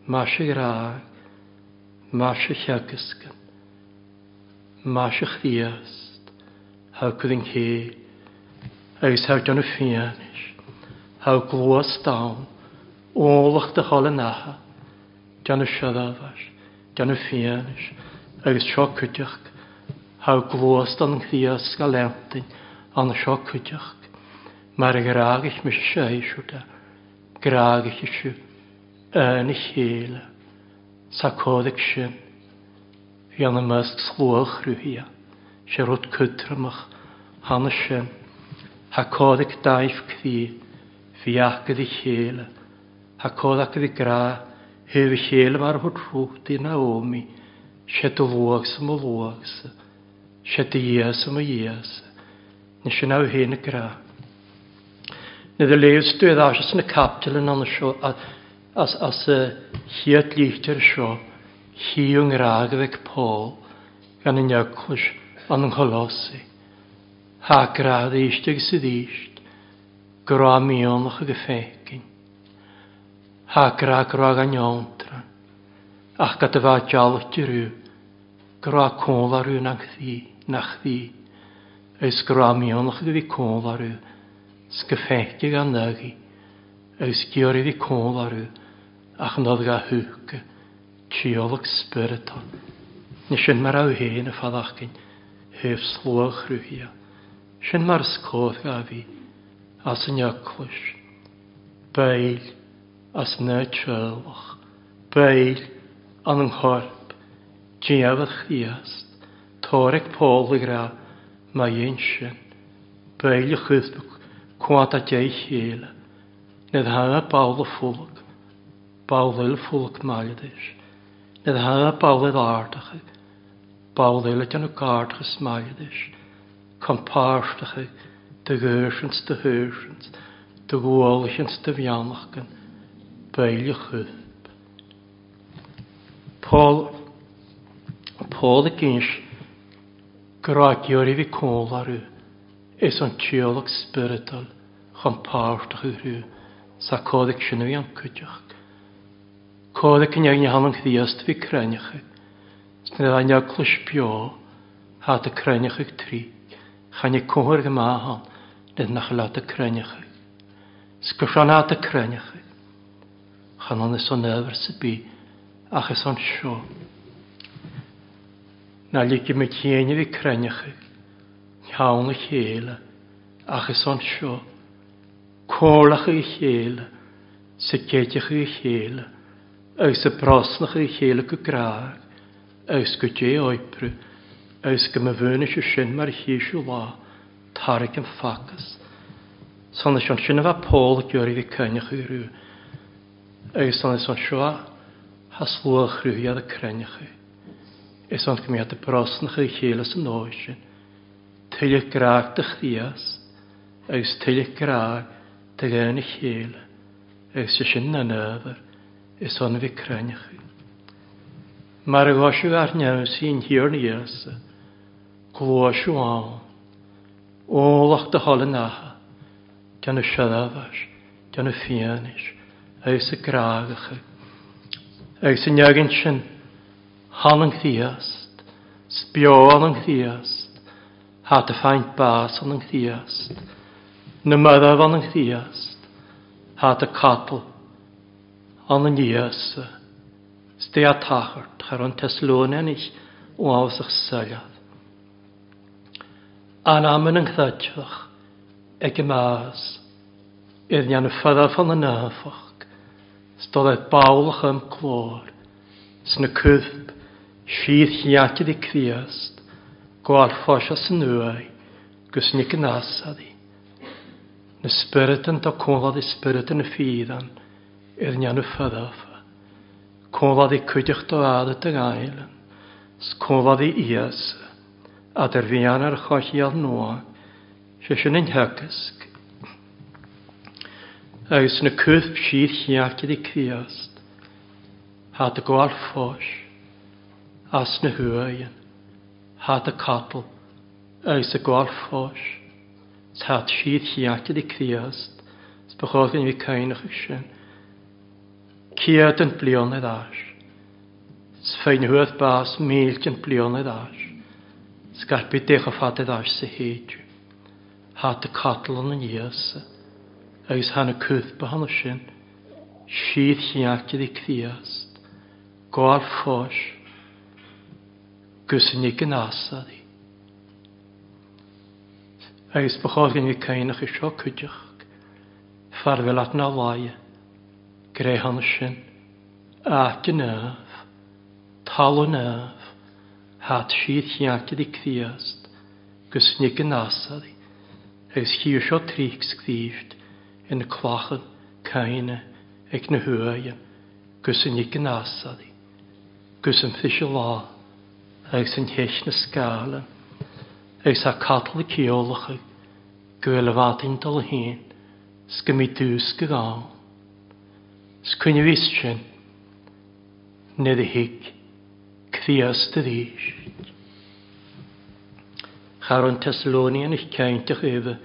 maise ghrág, maise theagascan, maise Chríost, thá acu an chéill, agus thá déanamh fianaise, thá gluas donn, eolach do thoil an Atha, déanamh seodámhais, déanamh fianaise, agus seo cuideachta, thá gluas don Chríost go leantain ann seo cuideachta, mar a ghrágaich mise seisear de, grágaich sibh ina chéile. Sa códaic sin, bhí ann i measc slua chruthaithe, sé rud cothromach cheana sin, thá códaic daimh croí, bhí acu a chéile, thá códaic a bhí grá thaobh a chéile mar a thabhairt Rút í Naomi, sé do luachsa mo luachsa, sé do Dhia-sa mo Dhia-sa, ní sin amh féin a grá. Nuair a léigheas tú ar ais sna caipitile ann seo as as a chéad litir seo chí an ngrá go bhfeic Pól gan an eaglais an an Cholossae. Thá grá arís agus arís, grá mianach go féicinn. Thá grá grá gan fhiontrainn, ach cad a bheadh dealbh orthu, grá cúl orthu nach bhí, nach bhí, agus grá mianach go bhí cúl orthu, 's go feicfidh gan aghaidh, agus giorraí bhí cúl orthu, ach nod ga húca, tíolaic spioradta. Ní sin mar raibh féin a fadachcain thaobh slua chruthaithe. Sin mar is cóir ga bhí, as an eaglais. Baill as na teaghlach. Baill an an chorp. Diabhal Chríost. Tóraigh Pól ag rá, má dhein sin. Baill a chuirfeadh cuanta dé chéile. Ní hea ball a fulag. Ball eile fulag mailidis. Ní hea ball eile ardachaidh. Ball eile déanamh gardchas mailidis. Compáirteachaidh do ghéirsint do shaoirsint, do ghualaithint do mheannachtain. Baill a chuirfeadh. Pól Pól ag inse go raibh giorraí bhí cúl orthu is an tíolaic spioradal chun páirt a chur sa códaic sin a bhí an cuideachta. Códaic in aigne an Chríost bhí cruinneacha, 's ní raibh an eaglais beo, thá do cruinneacha ag troid. Chan i comhair go maith ann le nach leat a cruinneacha. 'S gur seo ná do cruinneacha. Chan ann is an ábhar sa bith ach is anseo. Ná ligfidh muid féin a bheith cruinneacha cheann a chéile ach is anseo. Comhairleacha a chéile, sa gcéideacha a chéile agus sa brosnacha a chéile go grách agus go dté oibre agus go mba bhuanaise sin mar a chíseadh lá tarraig an facthas. San is ansin a bheadh Pól ag iarraidh bheith cruinneach orthu agus san is anseo a has luath chruthaigh a cruinneach. Is ann go mbeadh brosnacha a chéile san dóigh sin. Tuilleadh grá do Chríost agus tuilleadh grá do dhaoine a chéile agus sé sin an ábhar is ann a bheith cruinneach. Mar a ghoiseadh ár neamhsaí an Thiarna Íosa, gluaiseadh ann, eolach do thoil an Athar, déanamh seirbheis, déanamh fianais, agus a gcrágacha. Agus i ndiaidh sin, than an Chríost, 's beo an an Chríost, hat a faint bás an an Chríost, na mairbh an an Chríost, hat a capall an an Íosa, 's dé a tachart thar an Teslóineanach uafásach soileamh. Anam in an chreidmheach ag an mbás, ar ndéanamh foirfe na n-áfach, 's dul ar ballach am clár, sna cuirp síor-chearta de Chríost, gabháil fáis as an uaigh gus nic an asadaí. Na spioraid an do comhlad i spioraid na fíreann ar ndéanamh foirfe. Comhlad i cuideachta fhada do Ghaelainn, 's comhlad i Íosa, eadar mheán ar choicheall nua, sé sin an theagasc. Agus na cuirp síor-chearta de Chríost, thá do gabháil fós, as na huaigheann, thá do capall agus a gabháil fós, 's thá síor-chearta de Chríost, 's ba chóir go mbeadh caoineadh sin. Céadant bliain ar ais. 'S féin thuas bás mílteant bliain ar ais. Scaipfidh décha fada ar ais sa théide. Hata Catalan an Íosa agus thá na cúrpa cheana sin síor-chearta rí Críost, gabháil fós gus in ag an Asari. Agus ba chóir go mbeadh caoineach i seo cuideachta fear bheith leat ná laighe. Gréasán sin, áit an Naomh, talamh Naomh, hat siad cheart di Críost gus nig an Asari, agus chíor seo tríc scríbht ina clachan caoine ag na huaigheann gus i nig an Asari, gus an fiche lá agus an cheist na scáileann, agus tá capall ceolacha go bhfuil a bhfadaín dul féin. 's go mbí dús go gall. 'S coinne sin nuair a thig Críost arís. Cha raibh an Thessalonianach cinnte roimhe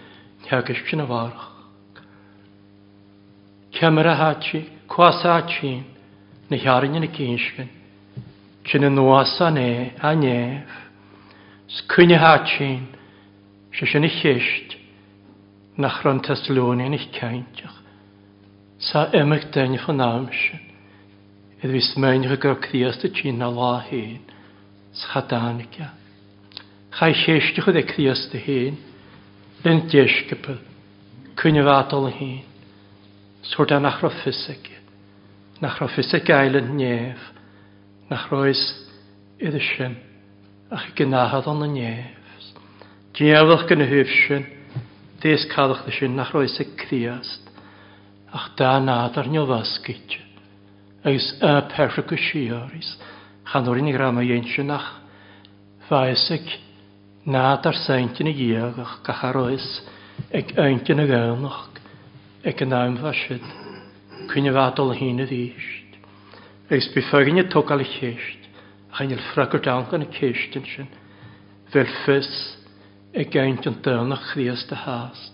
theagaisc sin a mharach. Ceamara háite, cuas áitín, na hearrainne na gcinscin, sin anuas an é, a néamh. 'S coinne háitín, sé sin a cheist. nach raibh an Thessalonianach cainteach sa imeacht duine fan am sin, iad a bhí smaoineach go raibh Críost a tinn a lá féin 's cha dtáinig a. Cha chéisteach é Críost a féin lena deisceabail, coinne mhaith dul féin, 's thabhairt é nach raibh fios aige, nach raibh fios ag Island Neamh, nach raibh fhios iad sin ach ag an Athair an Neamh. Diabhal go na thaobh sin, déas cadachta sin nach raibh fhios ag Críost ach dá nádar neamhoscailte agus a peirse go síoraí 's chan orainn a raibh mo dhéin sin ach bheadh fhios ag nádar saint ina dhiaidh ach gach a raibh fhios ag aint ina gcamhnach ag an am bheadh siad coinne bheadh dul féin arís agus bhí foighne ag tógáil a cheist ach níl freagairt ann do na ceisteanna sin. Bheadh fios ag aint an daonna Chríost a theacht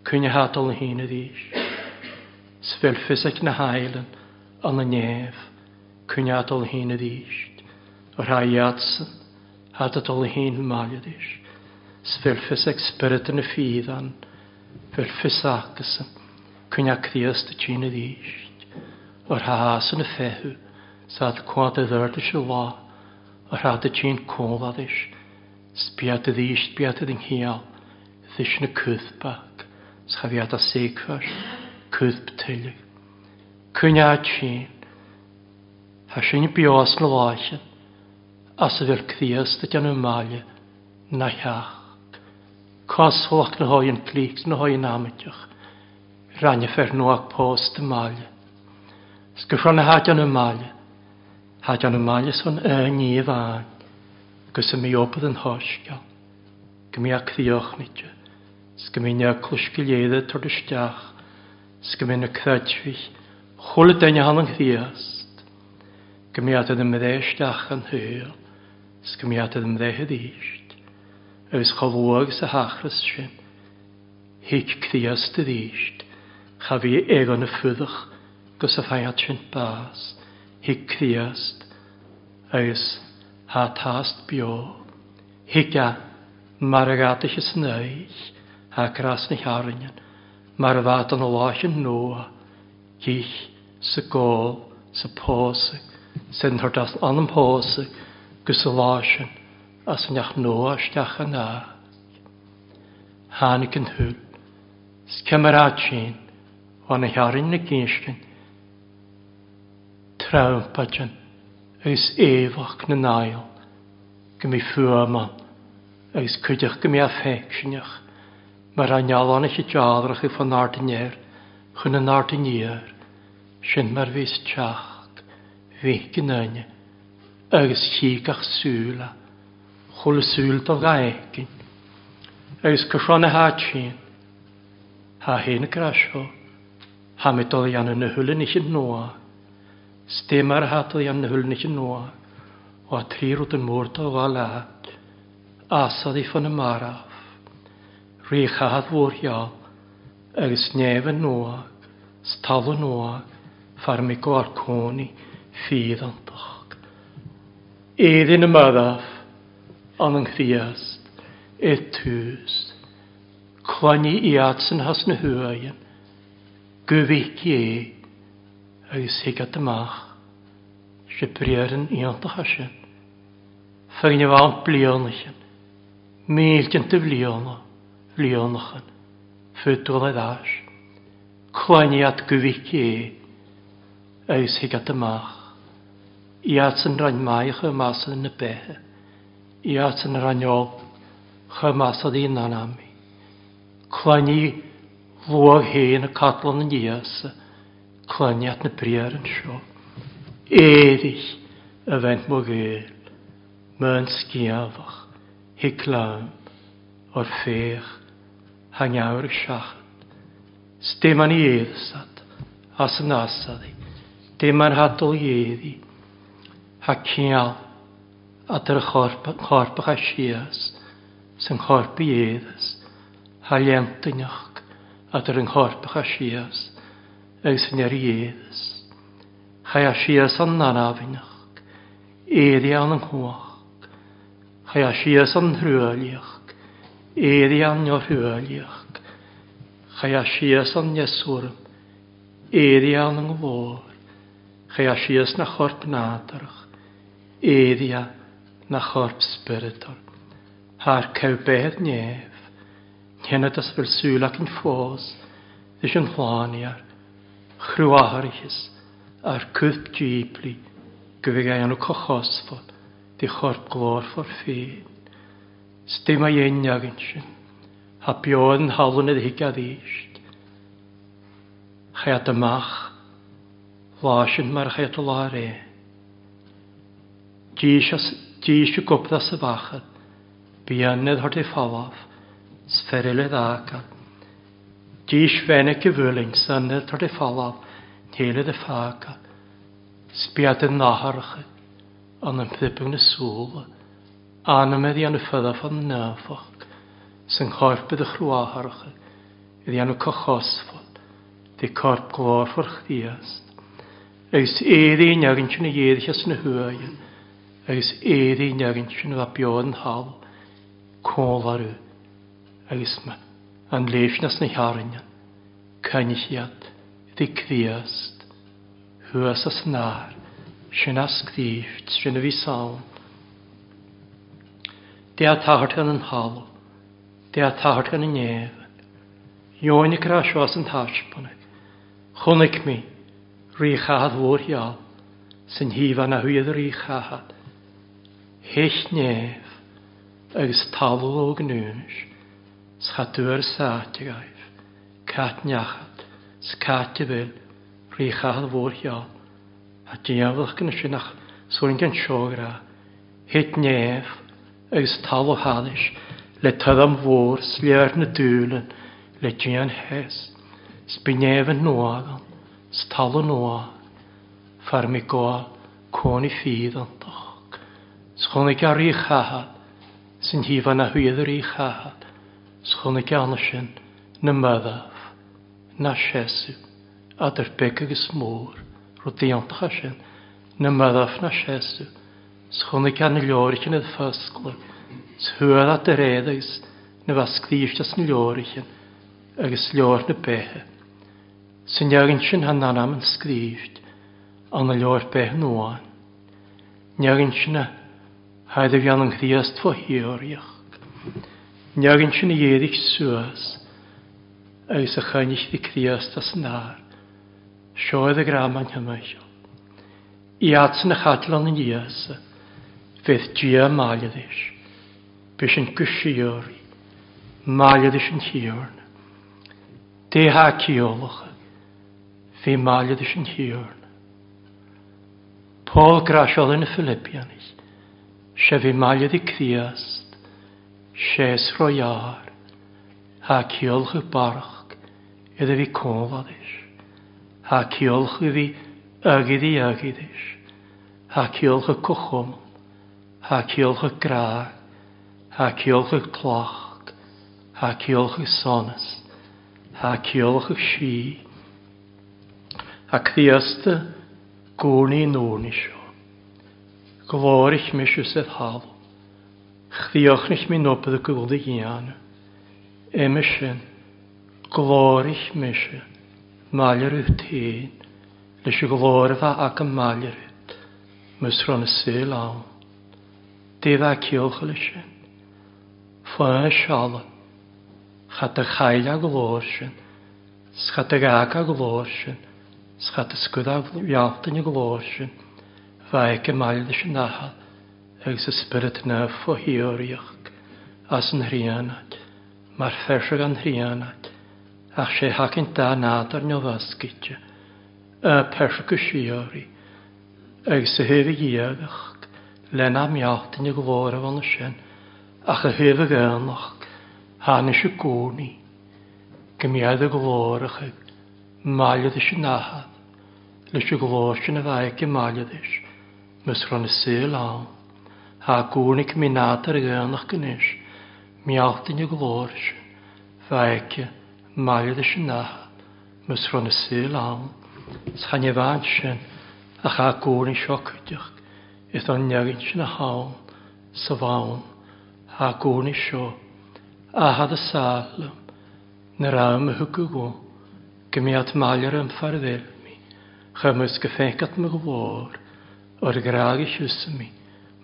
coinne thátal na haoine arís. 'S bheadh fios ag na haighleann an a neamh coinne thátal na haoine arís. Ar tha iadsan thart a dul a haon mbaile arís. 's bhfuil fios ag spiorad na fiadhan, bhfuil fios acusan, coinneadh Críost a tinn arís, or thá san a feitheamh, 's ad cuad a dhoirt a lá, or thá do tinn comhladais, 's bead arís bead den chiall, this na cuthbach, 's cha bhead a saocfar, cuthb tuilleadh. Coinneadh tinn. Thá sin beo sna láicheann, as a bhfuil Críost ag déanamh maille na theach. Cosmhalach na hóigheann clíc na hóigheann amaideach, rainne fer nuadh pósta maille. 'S go seo na thá déanamh maille, thá déanamh maille san ní amháin, agus a mí-obair an shoiscéal, go mbí a críochnaite, 's go mbí na eaglais go léir ag tabhairt isteach, 's go mbí na creidmhigh, chuile duine ann an Chríost, go mbí iad ina mbreith isteach an shaol, 's go mbí iad ina mbreith arís, agus chomh luath agus a thachras sin, thuig Críost arís, cha bhí éaga na fuadach gus a faigheadh sin bás, thuig Críost, agus thá tast beo, thuig a, mar a gheataithe san aghaidh, thá cras na hearrainne, mar a bheadh don láithreán nua, cích, sa gcól, sa pósadh, san thort as anam pósadh, gus sa lá sin, as an neach nua isteach an áit. Tháinig an shúil. 'S cé mar áit sin, ó na hearrainn na gcinscin, trampaidin agus éabhach na n-aill, go mbí fuaim ann, agus cuideachta go mbí a féicsinneach, mar a ngealláin a dealrach i fán ard aniar chun an ard aniar, sin mar bhíos teacht, bhí go n-aine, agus chí gach súil a, chuile súil dá gcaithfinn, agus go seo na háit sin, thá féin ag rá seo, thá mé dul a dhéanamh na huile nithe nua, 's dé mar athá tú a dhéanamh na huile nithe nua, ó thrí rud an mór dá ghabháil leat, asalaí fá na marbh, rí chathair mhórgheal, agus neamh nua, 's talamh nua, fear mé go cónaí fíreantach. Éirí na marbh, an an Chríost, ar tús. Clainní iadsan thas na huaigheann, go bhfeicfidh é agus thuig amach, sé briathar an iontacha sin. Foirgneamh ann blianachan, mílteanta bhliana, bhlianachan, fud dul ar ais. Clainní iad go bhfeicfidh é agus thuig amach. Iadsan roinn maith chomh maith san na beithe. Iadsan roinn olc chomh maith san in anami. Clainní luath féin a Catlan an Íosa, clainní at na briathar anseo. Éirigh, a bhean mo ghaoil, m'fhonn sciamhach, thig liom, or féach, tha ngeabhar ag seachad. 'S dé mar ní fhéadas-at, as an asalaí, dé mar tha dul dhéirí, tha ciall at ar a chorp, an chorp a chaith síos, 's an chorp a dhéadas, tha léantainneach at ar an chorp a chaith síos, agus an ar a dhéadas. Chaith síos an anamhneach, éirí an an chumhacht. Chaith síos an thruaillíoch, éirí an neothruaillíoch. Chaith síos an neasúram, éirí an an nglór. Chaith síos na chorp nádúrach, éirí na chorp spioradal. Thar ceadh beith neamh, Cén as bhfuil súil againn fós leis an shláinfhear, chruathaireachas ár cuid díblí go bhfidh aon cochosfar de chorp glórfar féin. 'S dé má dhein againn sin, thá beo ar an thalamh ar thig arís. Chaith amach lá sin mar a chaith lá aréir. Dís dís i gcupla sa bhachar. Bíonn ar thorthaí folamh, 's fear eile d'fhágáil. Dís bheannaigh a bhuaileann san ar thorthaí folamh, chéile do fágáil. 'S bead i nathracha an an phriobadh na súla, anam a dhéanamh folamh an naofach, 's an chorp i do chruathracha a dhéanamh cochosmhal de corp glórmhar Chríost. Agus éirí in againn sin a dh'éirighe as na huaighe. Agus éirí in againn sin a bheith beo ar an thalamh, comhlarú. Agus an léimhneas na hearainne, coinnigh iad di Críost thuas as an ár, sin a scríobh, sin a bhí ann. Dé a tagairt gan an thalamh, Dé a tagairt gan an néamh. Dheoin ag rá seo as an taispeánadh. Chonaic mé Rí Chathad mhór gheal, san thaobh ana thuaidh de Rí Chathad. Thit néamh agus talamh ó ghnúis, 's cha dtuar sáite agaibh, cat neachad, 's cat a bhfuil, Rí Chathad mhór gheal. A diabhlach gan sin ach suain gan seogra. Thit néamh agus talamh thairis le torann mhór 's léir na dúileann le dian thes. 'S bí néamh an nua agam 's talamh nua fear mi gabháil cónaí fíreantach. 'S chonaic a rí chathair 's an thaobh ana thuaidh de rí chathair 's chonaic ann sin na marbh ná seasamh eadar beag agus mór rud iontach é sin na marbh ná seasamh 's chonaic an leoraichin id foscladh 's thuar at do réad agus na bheith scríobhte san leoraichin agus leabhar na beithe. Sa neaghain sin tha n-anam an scríbht ann a leabhar beith nuáin. Neaghain sin a thaid a bhíonn an Chríost fo thíoraíocht. Neaghain sin a dh'éirigh suas agus a choinnigh di Críost as an ár. Seo iad a greamáin thimcheall. Iadsan a chaiteann an Íosa, bheadh Dia maille leis. B'shin go síoraí, maille leis an Thiarna. Dé há ciallacha, bhí maille leis an Thiarna. Pól Graiseála na Philippianaigh, sé bhí maille le Críost, sé is ró-ghearr, há ciallacha barrach, iad a bhí cónla leis. Há ciallacha a bhí Agaidí agaidis, Thá ciallcha cochom, Thá ciallcha grá, Thá ciallcha cloch, Thá ciallcha sonas, Thá ciallcha sí. Thá Críosta gcónaí nónaí seo. Glóirich mise sa talamh. Chríochnaigh mé n-obair go bhfuil a dhéanamh. Uime sin, glóirich mise maille Ruth féin leis an ghlóir a bheith agam maille Ruth, mus raibh na saol ann. Dé bheith ciallcha leis sin. Fáth seala, cha do chaill a ghlór sin, 's cha do gheag a ghlór sin, 's cha do scuad a bhealtaine a ghlór sin, bheith aici maille leis an Athair agus a Spiorad Naomh fo thíoraíocht as an Thríonoid, mar pheirseach an Thríonoid. Ach sé thacaint dá nádúr neamhoscailte, a peirse go síoraí, agus a thaobh a dhiagacht, lena mbealtaine glór a bhunadh sin, ach a thaobh a dhaonnacht, tháinig i gcónaí go mbeadh a glóracha maille leis an Athair, leis an ghlór sin a bheadh aici maille leis, mus raibh na saol ann. Thá i gcónaí go mbíonn nádúr a dhaonnacht anois, mbealtaine glór sin. Bheadh aici maille leis an Athair mus raibh na saol ann, 's chan é bhean sin ach a gcónaí seo cuideacht is an neagain sin a thonn sa bhonn a gcónaí seo athad a sáith liom na raibh mo thugadh go go mbeadh maille orm far bhil mí chuir mus go féiceat mo ghlór or ghrág a chiúsa mí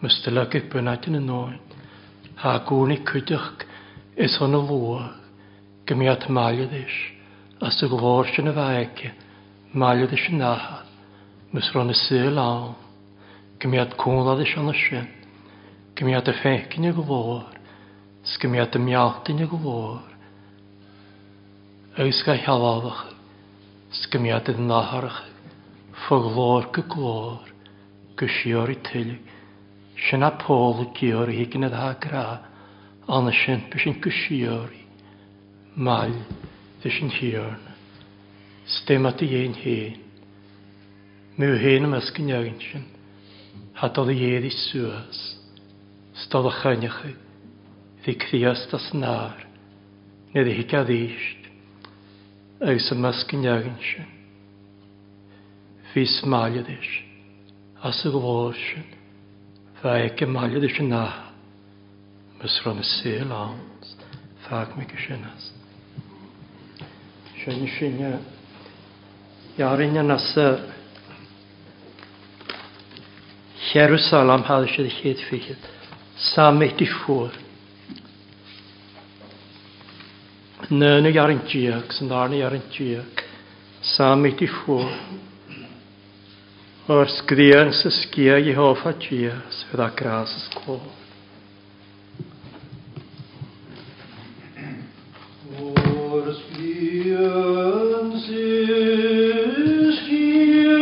mus do leagfadh bunáite na ndóin thá gcónaí cuideacht is ina luadh go mbeadh maille leis as a ghlór sin a bheith aici maille leis an Athair mus raibh na saol ann go mbeadh cónra leis an sin go mbeadh a féic ina ghlór 's go mbeadh a mealta ina ghlór agus go healálach 's go mbeadh a natharach fo ghlór go glór go síoraí tuilleadh. Sin a Pól ag iarraidh ag an atá grá ann sin b'shin go síoraí maille leis an Thiarna. 'S dé mat a dhéin féin. Mé féin i measc an neagain sin, thá dul a éirí suas, 's dul a choinneochaidh bhí Críost as an ár, nuair a thig aríst, agus i measc an neagain sin. Bhíos maille leis. As a ghlór sin, bheadh aici maille leis an Athair, mus raibh na saol ann. Fág mé go sin as. Sin sin Jarinne as Jerusalem hade siad chéad fichead. Psalm 84. Nöna jarin diag, san darna jarin diag. Psalm 84. O'r sgrian sa sgia Jehofa Dia, sydd â gras ys clod. O'r sgrian sy'n sgia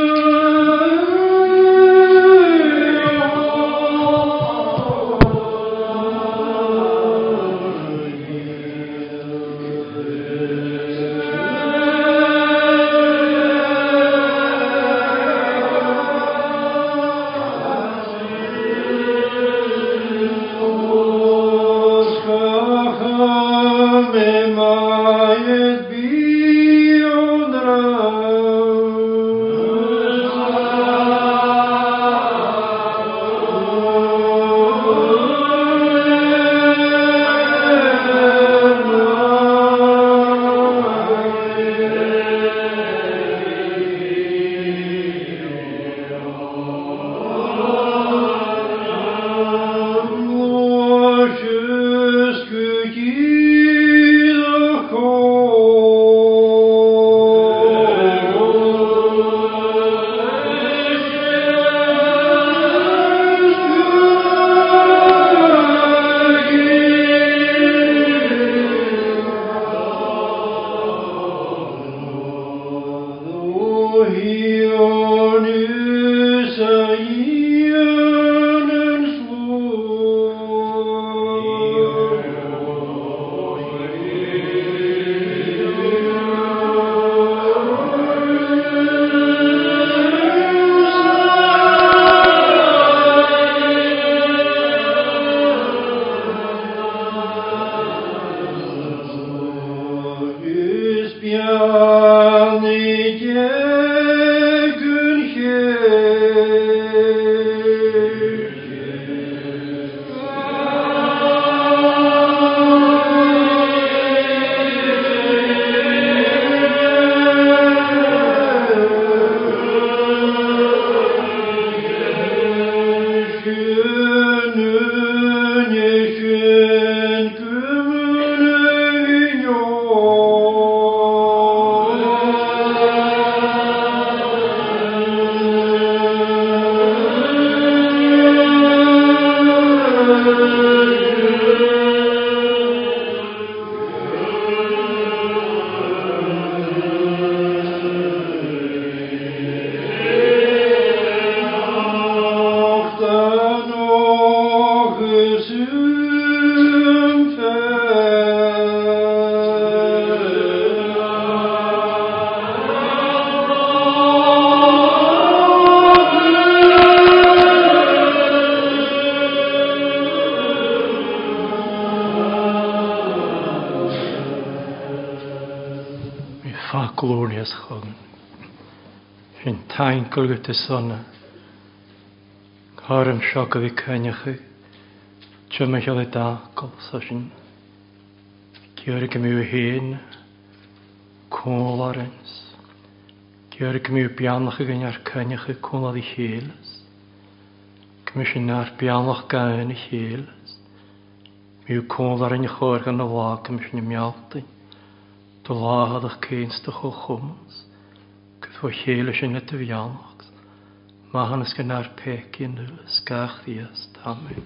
Glorious chugan. Sin taincail go te sonna. Cáram seo go bhí coinneacha. Tuma cheal i dácail sa sin. Ceir go mú héin. Cólarins. Ceir go mú beannach againn ar coinneacha cónad i chéileas. Go mú sin ar beannach gain i chéileas. Mú cólarin chóir gan na lá go mú sin i mealtain. Do láthadach céins do chomh chumas. Go fó chéile sin le do bheannacht. Maithiúnas go nár péic in nuala, gach Dias, Amen.